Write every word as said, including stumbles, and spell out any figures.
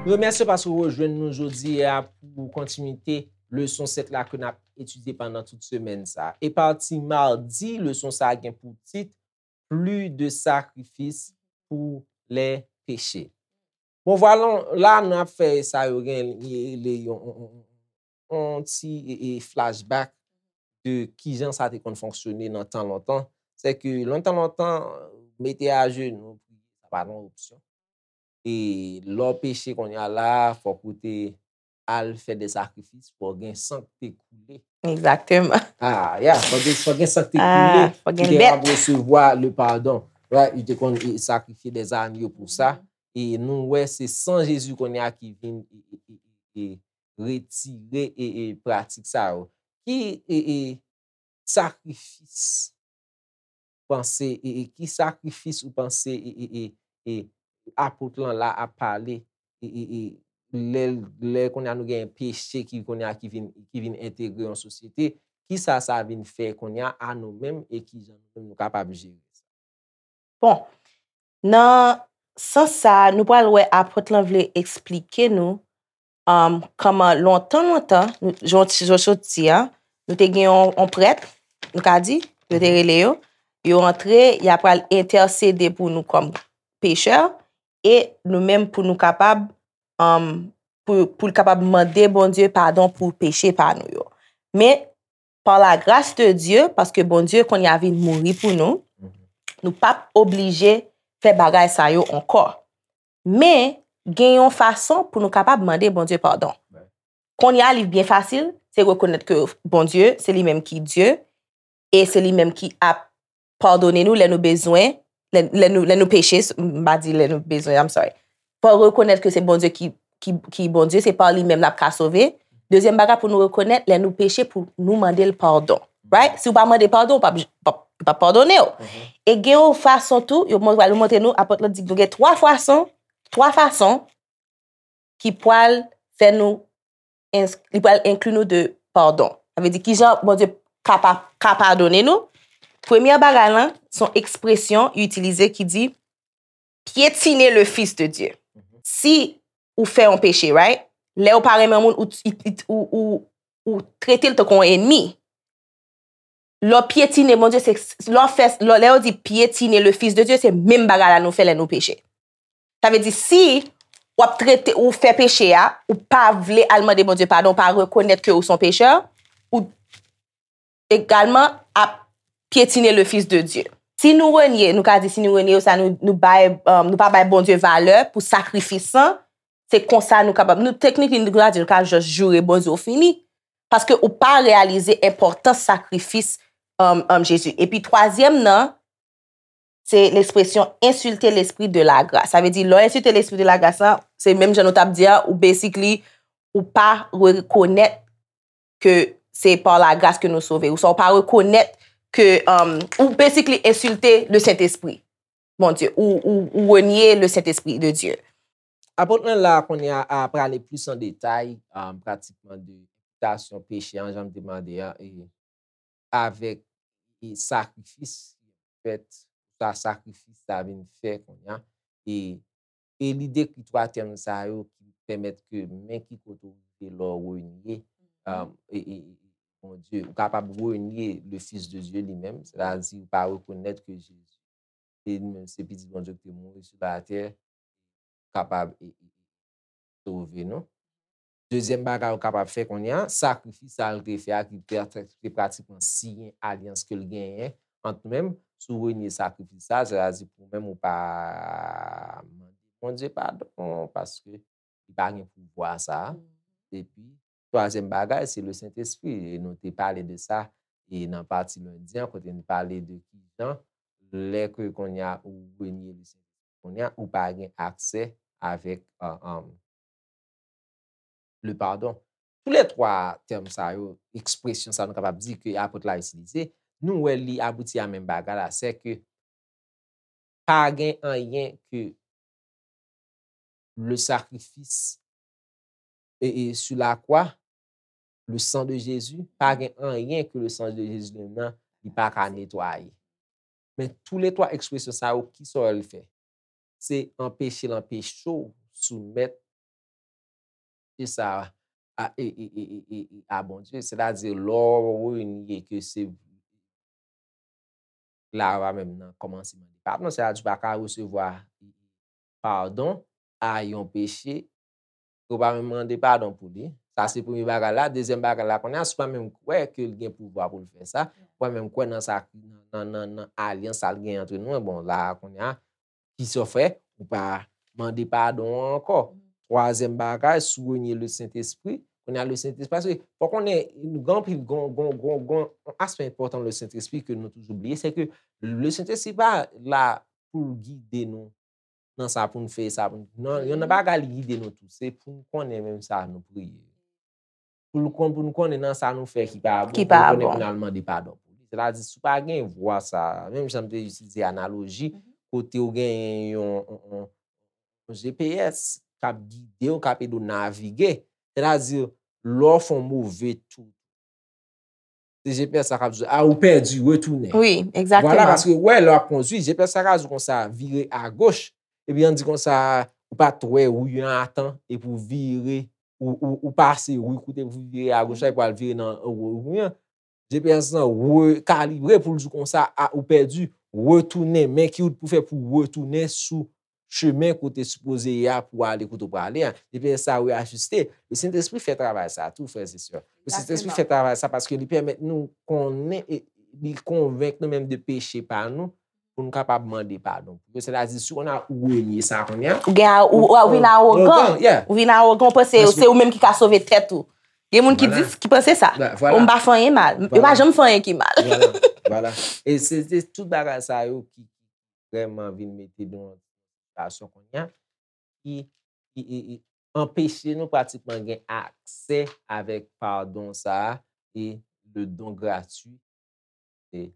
Remèsye paske w rejwenn nou jodi a pou kontinite leson sèt la ke n ap etidye pandan tout semèn sa. E pati madi, leson sa a gen pou tit Plus de sacrifice pour les péchés. Bon, vwala, la nou ap fè sa yo gen rele yon, yon, yon, yon ti e, e, flashback de kijan sa te konn fonksyone nan tan lontan. Se ke lontan, lontan, mete ajenou, priye, sa pa t yon opsyon. E lè w peche kounye a la, fòk ou te al fè de sakrifis, fòk gen san ki te koule. Egzakteman. Ah, yeah, fòk gen, fòk gen san ki te koule, ah, fòk gen dèt. Ki te ap resevwa le pardon. Right, yo te konn e, sakrifye de zanyo pou sa. E nou wè se san Jezi kounye a ki vin e, e, e, e, e retire e, e pratik sa yo. Ki e, e sakrifis panse e, e ki sakrifis ou panse e, e, e, e apot lan la ap pale e, e, e lè, lè kounye a nou gen peche ki kounye a ki vin, ki vin entegre yon sosyete, ki sa sa vin fè kounye a a nou menm e ki jan nou menm nou kapab jere sa? Bon, nan sans sa a, nou pral wè apot lan vle eksplike nou um, kòman lontan, lontan, jan w sot di a, nou te gen yon, yon prèt, nou ka di, yo te rele yo, yo antre, y ap pral entèsede pou nou kòm pechè, e nou menm pou nou kapab, um, pou, pou l kapab mande Bondye padon pou peche pa nou yo. Men, par la grâce de Dieu, paske Bondye kounye a vin mouri pou nou, nou p ap oblije fè bagay sa yo ankò. Men, gen yon fason pou nou kapab mande Bondye padon. Kounye a, li byen fasil, se rekonèt ke Bondye, se li menm ki Dye, e se li menm ki ap padone nou lè nou bezwen, lè, lè nou, lè nou peche, m pa di lè nou bezwen, I'm sorry. Fò rekonèt ke se Bondye ki, ki, ki Bondye, se pa li menm l ap ka sove. Dezyèm bagay pou nou rekonèt, lè nou peche, pou nou mande l padon. Right? Si w pa mande padon, w p ap, p ap, p ap padone w. E gen yon fason tou, yo pral montre nou, apot lan di nou gen twa fason, twa fason ki pral fè nou, li pral enkli nou de padon. Sa vle di kijan Bondye ka pa, ka padone nou. Premye bagay lan, se yon ekspresyon yo itilize ki di piétiner le Fils de Dieu. Si ou fè yon peche, right? Lè ou pa renmen moun, ou, ou, ou, ou trete l tankou yon enmi. Lè w pyetine Bondye, se lè w fè, lè, lè yo di piétiner le Fils de Dieu, se menm bagay la nou fè lè nou peche. Sa vle di, si w ap trete, ou fè peche a, ou pa vle al mande Bondye padon, ou pa rekonèt ke ou se yon pechè, ou egalman ap piétiner le Fils de Dieu. Si nou renye, nou ka di si nou renye yo, sa nou, nou bay, um, nou pa bay Bondye valè pou sakrifis lan, se konsa nou kapab, nou teknik li, nou ka di nou ka just joure Bondye ou fini. Paske ou pa reyalize enpòtans sakrifis, um, um, Jezi. Epi twazyèm nan, se l'expression insulter l'esprit de la grâce. Sa vle di, lè w ensilte l'esprit de la grâce lan, se menm jan nou t ap di a, ou basically, ou pa rekonèt ke se par la grâce ke nou sove. Ou sa, ou pa rekonèt ke, um, ou basically ensilte le Sentespri. Bondye, ou, ou, ou renye le Sentespri de Dye. Apot lan la kounye a, a prale plis an detay, um, pratikman de enpitasyon peche an, jan m te mande a, e avèk e sakrifis ki fèt, sa sakrifis sa vin fè kounye a. E, e li dekri twa tèm sa yo ki pèmèt ke men ki kote w rive lè w renye, um, e, e, e Bondye. Ou kapab renye le Fils de Dieu li menm, sètadi ou pa rekonèt ke Jezi se li menm, se Pitit Bondye ki te mouri sou latè, kapab e, e, sove nou. Dezyèm bagay ou kapab fè kounye a, sakrifis sa l te fè a ki te, te pratikman siyen alyans ke l genyen ant nou menm. Si w renye sakrifis sa, sètadi pou ou menm ou pa mande Bondye padon paske li pa gen pouvwa sa a. Epi, twazyèm bagay, se le Sentespri. E nou te pale de sa e nan pati lendi an, kote n pale de kijan lè ke kounye a ou renye le Sentespri, kounye a ou pa gen aksè avèk, uh, um, le pardon. Tou lè twa tèm sa yo, ekspresyon sa nou kapab di ke apot la itilize, nou wè li abouti a menm bagay la, se ke pa gen anyen ke le sacrifice e, e sur la croix le sang de Jésus, pa gen anyen ke le sang de Jésus li menm nan, li pa ka netwaye. Men tou le twa ekspresyon sa yo, ki sa l fè? Se anpeche l anpeche w soumèt e sa a, e, e, e, e, e, e, a Bondye. Sètadi, lè w renye ke se Lara menm nan kòmanse mande padon, sètadi w pa ka resevwa padon a yon peche ke w pa menm mande padon pou li. Sa se premye bagay la. Dezyèm bagay la, kounye a, si w pa menm kwè ke l gen pouvwa pou l fè sa, w pa menm kwè nan sa, nan, nan, nan alyans sa l gen antre nou, bon, la, kounye a, ki sa w fè? Ou pa mande padon an ankò. Twazyèm bagay, si w renye le Sentespri, kounye a le Sentespri, paske fò konnen, nou gen anpil, gon, gon, gon, gon, yon aspè enpòtan le Sentespri ke nou toujou bliye, se ke le Sentespri pa la pou l gide nou nan sa pou n fè, sa pou n, nan, yon nan bagay li gide nou tou, se pou n konnen menm sa nou priye. Pou l kon-, pou n konnen nan sa nou fè ki pa bon, pou n konnen pou n al mande padon pou li. Sètadi, si w pa gen vwa sa, menm jan m te itilize analoji, kote w genyen yon, yon, yon, yon G P S k ap gide w, k ap ede w navige. Sètadi, lè w fè yon move tou, se G P S la k ap di w, a, ou pèdi, retounen. Wi, egzakteman. Vwala, paske, wè, lè w ap kondui, G P S la ka di w konsa, vire agoch. Epi, ann di konsa, ou pa t wè ri an atan, epi w vire, ou, ou, ou pase ri kote pou vire agoch la, epi w al vire nan ri an. G P S lan rekalibre pou l di w konsa, a, ou pèdi, retounen, men ki wout pou fè pou retounen sou chemen kote sipoze ye a pou ale kote w prale a. G P S sa reyajiste. Le Sentespri fè travay sa tou, frè e sè. Le Sentespri fè travay sa paske li pèmèt nou konnen, e li konvenk nou menm de peche pa nou, pou nou kapab mande padon pou yo. Sètadi, si w konn a ou renye sa kounye a, Ou gen a, ou, ou vin awogan. Ou vin awogan, ou panse se ou menm ki ka sove tèt ou. Gen moun ki di, ki panse sa. Ou m pa fè anyen mal. Yo pa janm fè anyen ki mal. Vwala. E se, se tout bagay sa yo ki, ki vrèman vin mete nou nan sitiyasyon kounye a, ki, ki, ki, ki anpeche nou pratikman gen aksè avèk padon sa a e le don gratuit. E